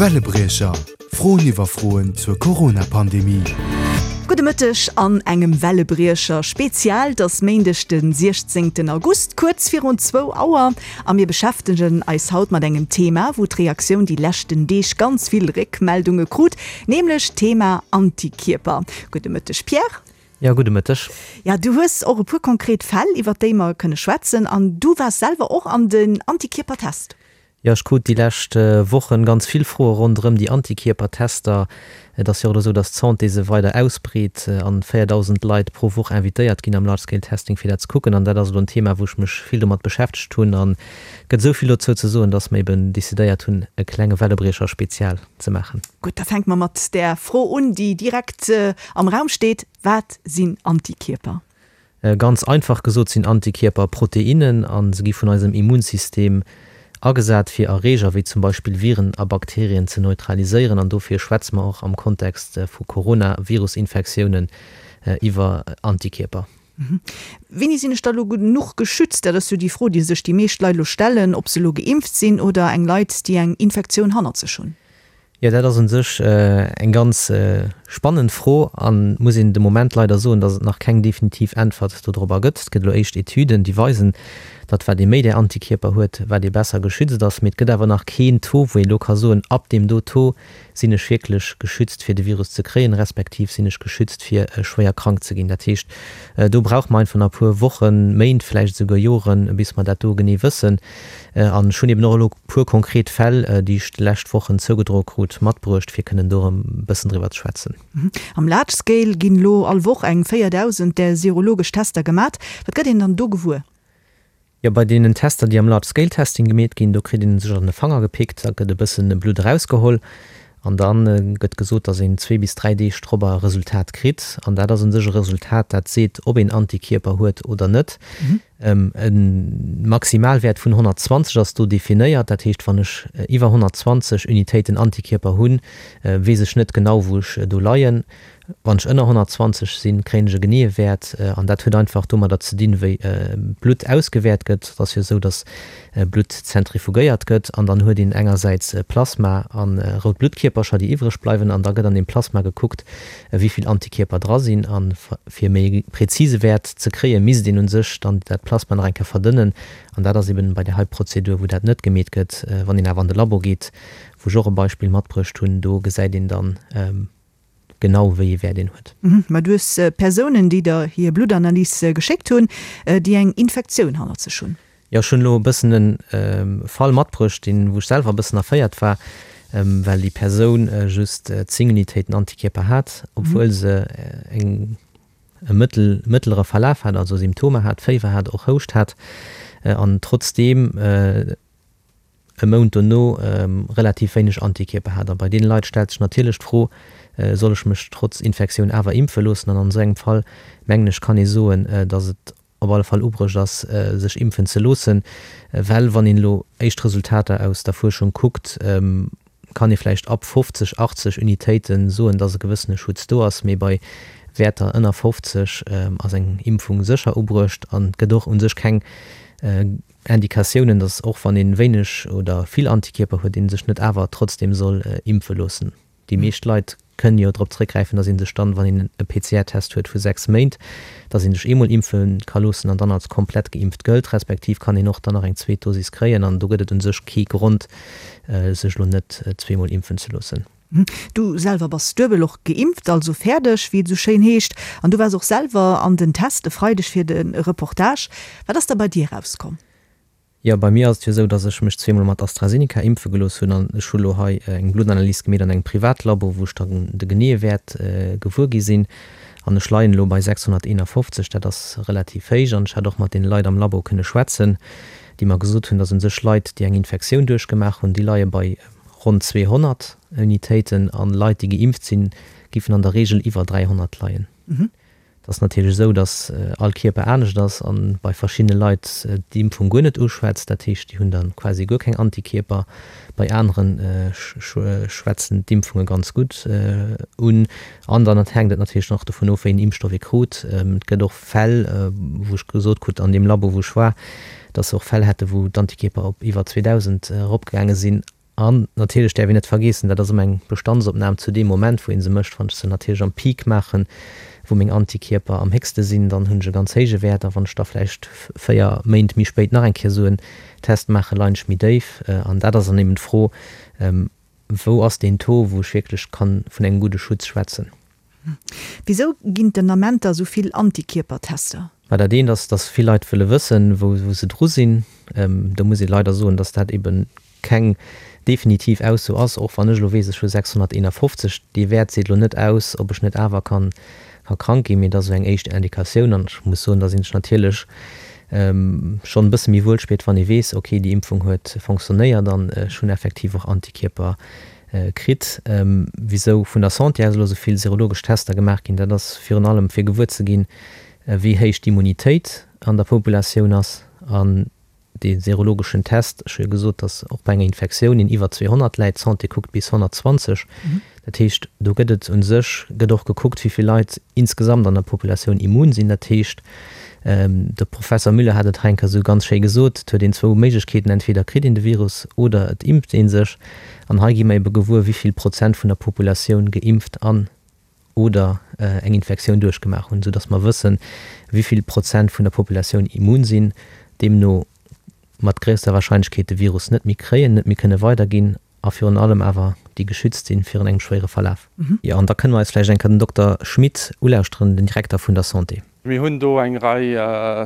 Wellebriecher, Froen iwwer Froen zur Corona-Pandemie. Gudde Mëtteg an engem Wellebriecher Spezial. Et ass Méindeg de 16 August, kuerz virun zwou Auer a mir beschäftegen eis haut mat engem Thema, wou d'Reaktioun déi leschten Deeg ganz vill Réckmeldunge krut, nämlech d'Thema Antikierper. Gudde Mëtteg Pierre. Jo, gudde Mëtteg. Ja, du hues och e puer konkret Fäll, iwwert déi mer kënne schwätzen an du waars selwer och an den Antikierpertest. Jo, ech krut déi lescht Wochen ganz vill Froe ronderëm déi Antikierpertester. Et ass jo och elo esou, datt d'Santé se weider ausbreet an 4.000 Leit pro Woch invitéiert ginn am Large Scale Testing fir dat ze kucken. An dat ass elo en Thema, wou ech mech vill domat beschäftegt hunn. An et gëtt esou vill dozou ze soen, datt mer eben decidéiert hunn, e klenge Wellebriecher Spezial ze maachen. Gutt, da fänke mer mat där Fro un, déi direkt am Raum steet, Wat sinn Antikierper? Ganz einfach gesot sinn Antikierper Proteinnen a se gi vun eisem Immunsystem agesat fir Erreeger wéi zum Beispill Viren a Bakterien ze neutraliséieren an dofir schwätze mer och am Kontext vu Coronavirusinfektiounen iwwer Antikierper. Wéini sinn ech da lo genuch geschützt? Dat ass jo déi Fro, déi sech déi meescht Leit elo stellen, ob se elo geimpft sinn oder eng Leit, déi eng Infektioun hannert sech hunn. Jo, dat ass un sech eng ganz spannend Fro an muss een de Moment leider soen, datt et nach keng definitiv Äntwert dodrobber gëtt. Et gëtt elo éischt Etüden, déi weisen, datt wat ee méi där Antikierper huet, wat ee besser geschützt ass. Mee et gëtt awer nach keen Taux, wou ee elo ka soen, ab deem do Taux sinn ech wierklech geschützt fir de Virus ze kréien, respektiv sinn ech geschützt fir schwéier krank ze ginn. Dat heescht, do brauche mer einfach nach e puer Wochen, Méint, vläicht esouguer Joren, bis mer dat do genee wëssen. An ech hunn eben och elo puer konkret Fäll, déi ech déi lescht Wochen zougedroe krut, matbruecht, fir kënnen do erëm e bëssen driwwer ze schwätzen. Am Large Scale ginn elo all Woch eng 4.000 där serologesch Tester gemat. Wat gëtt een dann do gewuer? Jo, bei deenen Tester, déi am Large Scale Testing gemeet ginn, do kritt een sech an de Fanger gepickt, da gëtt e bëssen Blutt erausgeholl an da gëtt gesot, datt een zwee bis dräi Deeg drop e Resultat kritt. An dat ass u sech e Resultat, dat seet, ob een Antikierper huet oder net. E Maximalwäert vun 120 ass do definéiert. Dat heescht, wann ech iwwer 120 Unitéiten Antikierper hunn, weess ech net genau, wou ech do leien. Wann ech ënner 120 sinn, kréien ech e geneeë Wäert. An dat huet einfach domadder ze dinn, wéi Blutt ausgewäert gëtt. Et ass jo esou, datt Blutt zentrifugéiert gëtt an dann huet een engersäits Plasma a rout Bluttkierpercher, déi iwwreg bleiwen. An da gëtt an deem Plasma gekuckt, wéi vill Antikierper dra sinn. A fir méi e präzise Wäert ze kréien, misst een u sech dann dat Plasma nach eng Kéier verdënnen. An dat ass eben bei där hei Prozedur, wou dat net gemeet gëtt. Wann een awer an de Labo geet, wou ech och e Beispill matbruecht hunn, do gesäit een dann, genau wéi ee Wäert een huet. Mä du hues Persounen, déi der hir Bluttanalys geschéckt hunn, déi eng Infektioun hannert sech hunn. Jo, ech hunn elo e bëssen e Fall matbruecht, deen, wou ech selwer e bëssen erféiert war, well déi Persoun just 10 Unitéiten Antikierper hat, obwuel se eng, e mëttel, mëttlere Verlaf hat, also Symptomer hat, Féiwer hat, och Houscht hat, an trotzdeem e Mount dono relativ wéineg Antikierper hat. A bei deene Leit stellt sech natierlech d'Fro, Soll ech mech trotz Infektioun awer impfe loossen? An an esou engem Fall, mengen ech, kann ee soen, datt et op alle Fall ubruecht ass, sech impfen ze loossen. Well wann een elo éischt Resultater aus der Fuerschung kuckt, kann ee vläicht ab 50, 80 Unitéite soen, datt e gewëssene Schutz do ass. Mee bei Wäerter ënner 50 ass eng Impfung sécher ubruecht an et gëtt och u sech keng Indikatiounen, dass och wann een wéineg oder vill Antikierper huet, een sech net awer trotzdem soll impfe loossen. Déi meescht Leit kënnen jo drop zréckgräifen, dass een sech dann, wann een e PCR-Test huet vu 6 Méint, dass een sech eemol impfe ka loossen an dann als komplett geimpft gëllt, respektiv kann een och dann nach eng zweet Dosis kréien an do gëtt et un sech kee Grond, sech elo net zweemol impfen ze loossen. Du selwer bass duebel och geimpft, also fäerdeg, wéi et esou schéin heescht. An du waars och selwer an den Test e Freideg fir de Reportage. Wat ass da bei dir erauskomm? Jo, bei mir ass et jo esou, dass ech mech zweemol mat AstraZeneca impfe gelooss hunn an ech hu lo hei eng Bluttanalys gemeet an engem Privatlabo, wou ech dann de geneeë Wäert gewuer gi sinn. An ech leien elo bei 651, dat ass relativ héich. An ech hat och mat deene Leit am Labo kënne schwätzen, déi mer gesot hunn, dass u sech Leit, déi eng Infektioun duerchgemaach hunn, déi leie bei Ronn 200 Unitéiten an Leit, déi geimpft sinn, giffen an der Reegel iwwer 300 leien. Et ass natierlech esou, datt all Kierper anescht ass an bei verschiddene Leit d'Impfung guer net uschwätzt. Dat heescht, déi hunn da quasi guer keng Antikierper. Bei anere schwätzen d'Impfunge ganz gutt un. An dann hänkt et natierlech nach dovun of, wéi een Impfstoff ee krut. Et gëtt och Fäll, wou ech gesot krut an deem Labo, wou ech war, datt se och Fäll hätte wou d'Antikierper op iwwer 2.000 eropgaange sinn. An natierlech däerf een net vergeessen, dat ass ëmmer eng Bestandsopnam zu deem Moment, wou ee se mécht. Wann ech se natierlech am Peak maachen, wou meng Antikierper am héchste sinn, dann hunn ech e ganz héije Wäert. A wann ech da vläicht 4 Méint méi spéit nach eng Kéier esou en Test maachen, leien ech méi déif. An dat ass dann eben d'Fro, Wou ass deen Taux, wou ech wierklech kann vun engem gudde Schutz schwätzen? Wisou ginn et den Ament da sou vill Antikierpertester? Mä dat eent ass, dass vill Leit wëlle wëssen, wou se dru sinn. Do muss ee leider soen, dass dat ebe keng definitiv Ausso ass. Och wann ech elo weess, ech hu 651, dee Wäert seet elo net aus, ob ech net awer kann krank ginn, mee et ass esou eng éischt Indikatioun. An ech muss soen, da sinn ech natierlech schonn e bësse méi wuel spiert, wann ee weess, okay, déi Impfung huet fonctionnéiert an ech hunn effektiv och Antikierper kritt. Wisou vun der Santé aus elo esou vill serologesch Tester gemaach ginn, dat ass virun allem fir gewuer ze ginn, wéi héich d'Immunitéit an der Populatioun ass. An dee serologeschen Test, ech hu jo gesot, datt och bei enger Infektioun een iwwer 200 läit, d'Santé kuckt bis 120. Dat heescht, do gëtt et u sech, gëtt och gekuckt, wéi vill Leit insgesamt an der Populatioun immun sinn. Dat heescht, de Professer Müller hat et hei eng Kéier esou ganz schéi gesot, et huet een zwou Méiglechkeeten, entweder kritt een de Virus oder et impft ee sech. An hei gi mer ebe gewuer, wéi vill Prozent vun der Populatioun geimpft an oder eng Infektioun duerchgemaach hunn, soudass mer wëssen, wéi vill Prozent vun der Populatioun immun sinn, deemno mat gréisster Warscheinlechkeet de Virus net méi kréien, net méi kënne weiderginn a virun allem awer déi geschützt sinn virun engem schwéiere Verlaf. Jo, an da kënne mer eis vläicht eng Kéier den Dokter Schmit ulauschteren, den Direkter vun der Santé. Mir hunn do eng Rei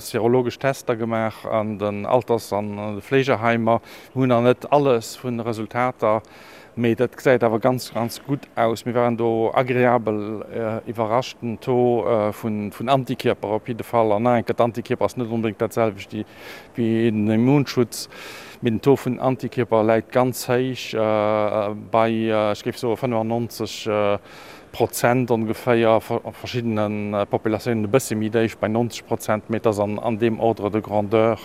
serologesch Tester gemaach an den Alters an de Fleegeheimer. Mir hunn nach net alles vun de Resultater, mee dat gesäit awer ganz, ganz gutt aus. Mir waren do agreabel iwwerrascht. Den Taux vun Antikierper op jidde Fall, an nach eng Kéier, d'Antikierper ass net onbedéngt dat selwecht wéi den Immunschutz, mee den Taux vun Antikierper läit ganz héich bei, ech géif soe 95 Prozent ongeféier, a verschiddene Populatiounen e bësse méi déif, bei 90 Prozent, mee et ass an deem Ordre de grandeur,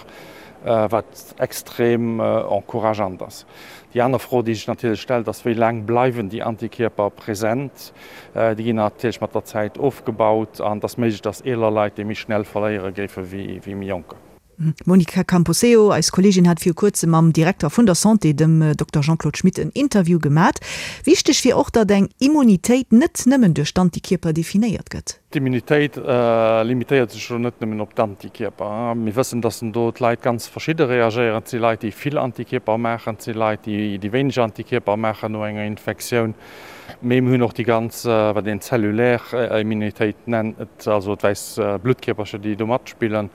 wat extrem encourageant ass. Déi aner Fro, déi sech natierlech stellt, ass, Wéi laang bleiwen déi Antikierper present? Déi ginn natierlech mat der Zäit ofgebaut an et ass méiglech, dass eeler Leit déi méi schnell verléiere géife wéi méi jonker. D'Monica Camposeo, eis Kolleegin, hat viru kuerzem mam Direkter vun der Santé, dem Dokter Jean-Claude Schmit, en Interview gemat. Wichteg wier och, datt eng Immunitéit net nëmmen duerch d'Antikierper definéiert gëtt. D'Immunitéit limitéiert sech elo net nëmmen op d'Antikierper. Mir wëssen, datt do d'Leit ganz verschidde reagéieren. Et si Leit, déi vill Antikierper maachen, et si Leit, déi wéineg Antikierper maachen no enger Infektioun. Mee mir hunn och déi ganz, wat een zellulär Immunitéit nennt, also d'wäiss Bluttkierpercher, déi do matspillen.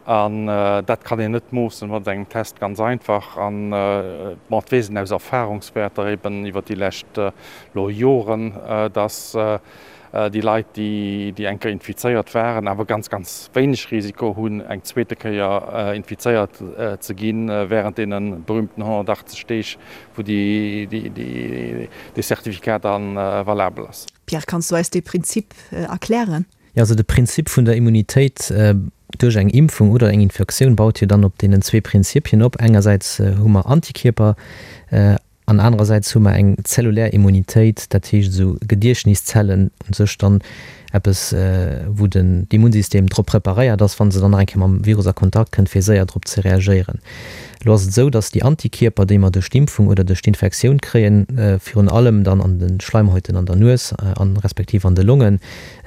An dat kann een net moossen mat engem Test, ganz einfach. An bon, et weess een aus Erfahrungswäerter eben iwwer déi lescht elo Joren, dass déi Leit, déi eng Kéier infizéiert waren, awer ganz, ganz wéineg Risiko hunn, eng zweete Kéier infizéiert ze ginn, während deene berühmten 180 Deeg, wou dee Certificat da valabel ass. Pierre, kanns du eis dee Prinzip erklären? Jo, also de Prinzip vun der Immunitéit duerch eng Impfung oder eng Infektioun baut jo dann op deenen zwee Prinzipien op. Engersäits hu mer Antikierper an anerersäits hu mer eng zellulär Immunitéit, dat heescht esou Gediechtniszellen, u sech dann eppes, wou den d'Immunsystem drop preparéiert ass, wa se dann nach eng Kéier mam Virus a Kontakt kënnt, fir séier drop ze reagéieren. Elo ass et esou, datt déi Antikierper, déi mer duerch d'Impfung oder duerch d'Infektioun kréien, virun allem dann an de Schleimhäuten an der Nues an respektiv an de Longen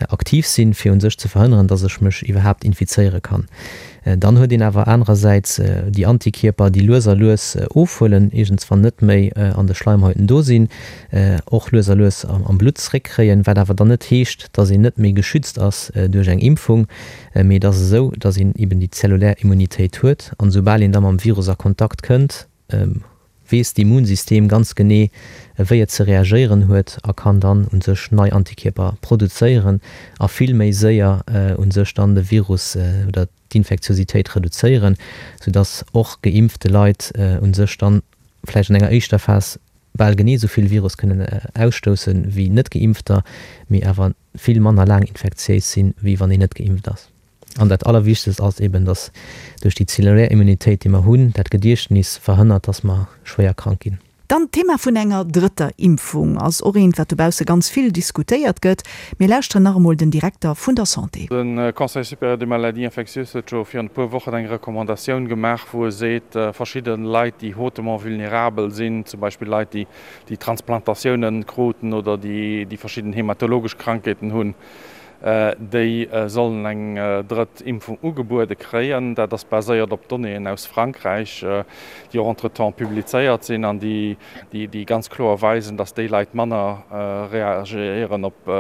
aktiv sinn, fir u sech ze verhënneren, datt ech mech iwwerhaapt infizéiere kann. Dann huet een awer anerersäits déi Antikierper, déi lues a lues ofhuelen, iergendswann net méi an de Schleimhäuten do sinn, och lues a lues am Blutt zréckkréien, wat awer dann net heescht, datt een net méi geschützt ass duerch eng Impfung. Mee et ass esou, datt een eben déi zellulär Immunitéit huet an esoubal een da mam Virus a Kontakt kënnt, weess d'Immunsystem ganz genee, wéi et ze reagéieren huet a kann dann u sech nei Antikierper produzéieren a vill méi séier u sech dann de Virus oder d'Infektiositéit reduzéieren, soudatt och geimpfte Leit u sech dann vläicht an enger éischter Phas bal genee esou vill Virus kënnen ausstoussen wéi net-Geimpfter, mee awer vill manner laang infektiéis sinn, wéi wann een net geimpft ass. An dat Allerwichtegst ass eben, dass duerch déi zellulär Immunitéit, déi mer hunn, dat Gediechtnis verhënnert, dass mer schwéier krank ginn. Dann d'Thema vun enger drëtter Impfung ass och eent, wat dobausse ganz vill diskutéiert gëtt. Mir lauschteren nach emol den Direkter vun der Santé. De Conseil supérieur des maladies infectieuses huet jo virun e puer Wochen eng Recommandatioun gemaach, wou e seet, verschidde Leit, déi hautement vulnérabel sinn, zum Beispill Leit, déi déi Transplantatiounen kruten oder déi verschidden hematologesch Krankheeten hunn, déi sollen eng drëtt Impfung ugebuede kréien. Dat ass baséiert op Donnéeën aus Frankräich, déi och entretemps publizéiert sinn an déi ganz kloer weisen, datt déi Leit manner reagéieren op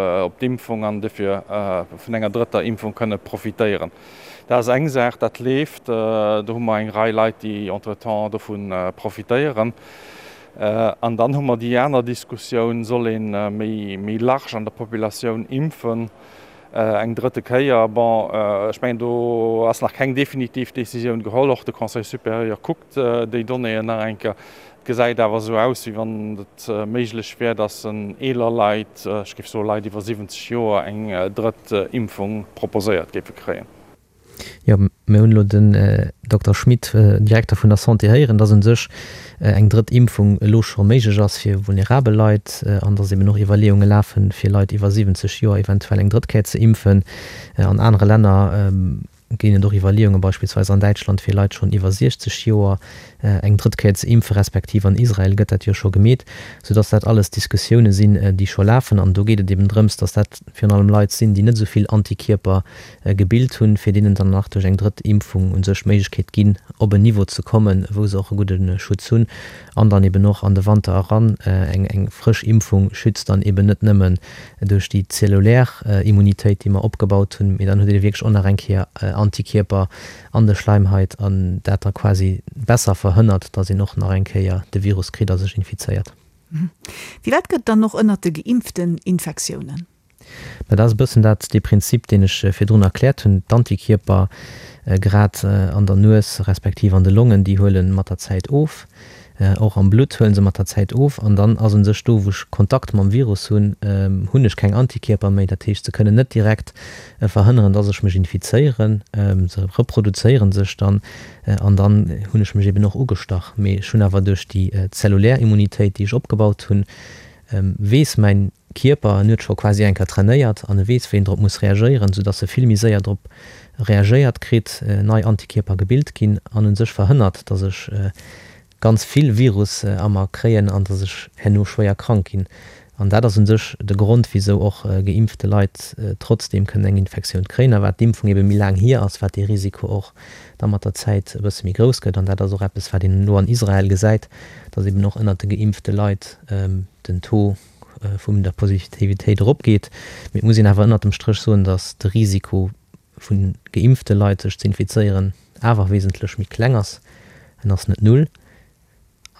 d'Impfung an dofir vun enger drëtter Impfung kënne profitéieren. Dat ass eng Saach, dat leeft. Do hu mer eng Rei Leit, déi entretemps dovu profitéieren. An dann hu mer déi aner Diskussioun, Soll ee méi large an der Populatioun impfen eng drëtte Kéier? Bon, ech mengen, do ass nach keng definitiv Décisioun geholl. Och de Conseil supérieur kuckt déi Donnéeën nach eng Kéier. Et gesäit awer esou aus, wéi wann et méiglech wär, datt eeler Leit, ech géif soe Leit iwwer 70 Joer, eng drëtt Impfung proposéiert géife kréien. Jo, mir hunn elo den Dokter Schmit, Direkter vun der Santé, héieren, dass u sech eng drëtt Impfung elo scho méiglech ass fir vulnerabel Leit an dass eben och Iwwerleeunge lafen, fir Leit iwwer 70 Joer eventuell eng drëtt Kéier ze impfen. An anere Länner ginn et och Iwwerleeungen, beispillsweis an Däitschland, fir Leit schonn iwwer 60 Joer eng drëtt Kéier ze impfen, respektiv an Israel gëtt dat jo scho gemeet, soudass dat alles Diskussioune sinn, déi scho lafen. An do geet et eben drëms, dass dat virun allem Leit sinn, déi net esou vill Antikierper gebilt hunn, fir deenen dann nach duerch eng drëtt Impfung u sech d'Méiglechkeet ginn, op en Niveau ze kommen, wou se och e gudde Schutz hunn an dann eben och an de Wanter eran. Eng eng frësch Impfung schützt dann eben net nëmmen duerch déi zellulär Immunitéit, déi mer opgebaut hunn, mee dann huet ee wierklech och nach eng Kéier Antikierper an de Schleimhait an dat da quasi besser verhënnert, dass een och nach eng Kéier de Virus kritt a sech infizéiert. Firwat gëtt dann och ënnert de Geimpften Infektiounen? Mä dat ass e bëssen dat, dee Prinzip, deen ech virdrun erkläert hunn. D'Antikierper, grad an der Nues respektiv an de Longen, déi huele mat der Zäit of. Och am Blutt huele se mat der Zäit of. An dann ass u sech do, wou ech Kontakt mam Virus hunn, hunn ech keng Antikierper méi. Dat heescht, se kënnen net direkt verhënneren, dass ech mech infizéieren. Se reproduzéiere sech dann an dann hunn ech mech eben och ugestach. Mee ech hunn awer duerch déi zellulär Immunitéit, déi ech opgebaut hunn, weess mäin Kierper, en huet scho quasi eng Kéier trainéiert an e weess, wéi en drop muss reagéieren, soudass e vill méi séier drop reagéiert kritt, nei Antikierper gebilt ginn an u sech verhënnert, dass ech ganz vill Virus a mer kréien an dass ech herno schwéier krank ginn. An dat ass u sech de Grond, wisou och geimpfte Leit trotzdeem kënnen eng Infektioun kréien a wat d'Impfung ebe méi laang hier ass, wat dee Risiko och da mat der Zäit e bësse méi grouss gëtt. An dat ass och eppes, wat een elo an Israel gesäit, dass eben och ënnert de geimpfte Leit den Taux vum der Positivitéit eropgeet. Mee et muss een awer ënnert dem Stréch soen, datt de Risiko vu geimpfte Leit sech ze infizéieren awer wesentlech méi kleng ass. En ass net null.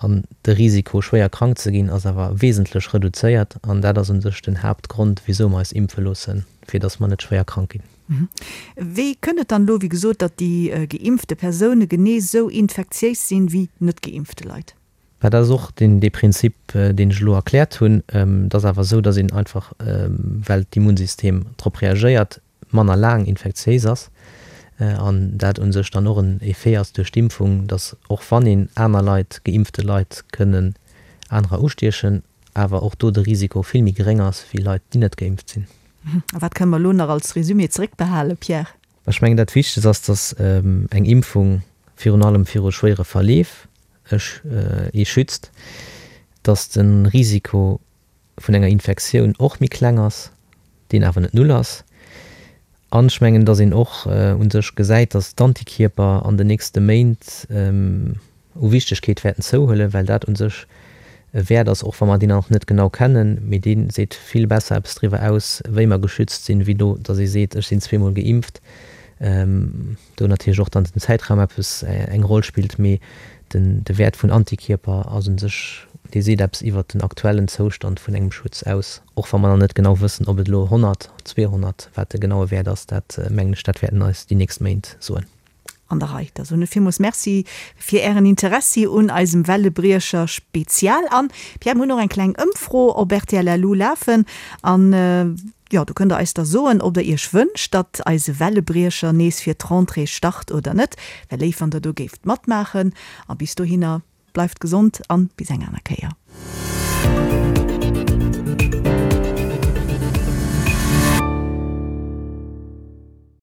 An de Risiko schwéier krank ze ginn ass awer wesentlech reduzéiert. An dat ass u sech den Haaptgrond wisou mer eis impfe loossen, fir datt mer net schwéier krank ginn. Wéi kënnt et dann elo, wéi gesot, datt déi geimpfte Persoune genee sou infektiéis sinn wéi net geimpfte Leit? Mä dat ass och deen, dee Prinzip, deen ech elo erkläert hunn. Et ass awer esou, datt een einfach, well d'Immunsystem drop reagéiert, manner laang infektiéis ass an dat u sech dann och en Effet ass duerch d'Impfung, datt och wann een aner Leit, geimpfte Leit kënnen anerer ustiechen, awer och do de Risiko vill méi geréng ass wéi Leit, déi net geimpft sinn. A wat kënne mer elo nach als Resumé zeréckbehalen, Pierre? Ech mengen, dat Wichtegst ass, datt eng Impfung virun allem viru schwéiere Verleef ee schützt, datt de Risiko vun enger Infektioun och méi kleng ass, deen awer net null ass. An ech mengen, datt een och u sech gesäit, datt d'Antikierper an den nächste Méint u Wichtegkeet wäerten zouhuelen, well dat u sech e Wäert ass, och wa mer deen nach net genau kennen, mee dee seet vill besser eppes driwwer aus, wéi mer geschützt sinn, wéi do, datt ee seet, ech sinn zweemol geimpft. Do natierlech och dann den Zäitraum eppes eng Roll spillt, mee den de Wäert vun Antikierper ass un sech, dee seet eppes iwwert den aktuellen Zoustand vun engem Schutz aus, och wa mer nach net genau wëssen, ob et elo 100, 200, wat de genaue Wäert ass, dat mengen ech, dat wäerten eis déi nächst Méint soen. An der Rei. Da soen ech villmools Merci fir Ären Interessi un eisem Wellebriecher Spezial. An, Pierre, mir hunn och eng kleng Ëmfro op rtl LU lafen an, jo, do kënnt Der eis da soen, ob Der Iech wënscht, datt eise Wellebriecher nees fir d'Rentrée start oder net. Wär léif, wann Der do géift matmaachen. A bis dohinner. Bleift gesond an bis eng aner Kéier.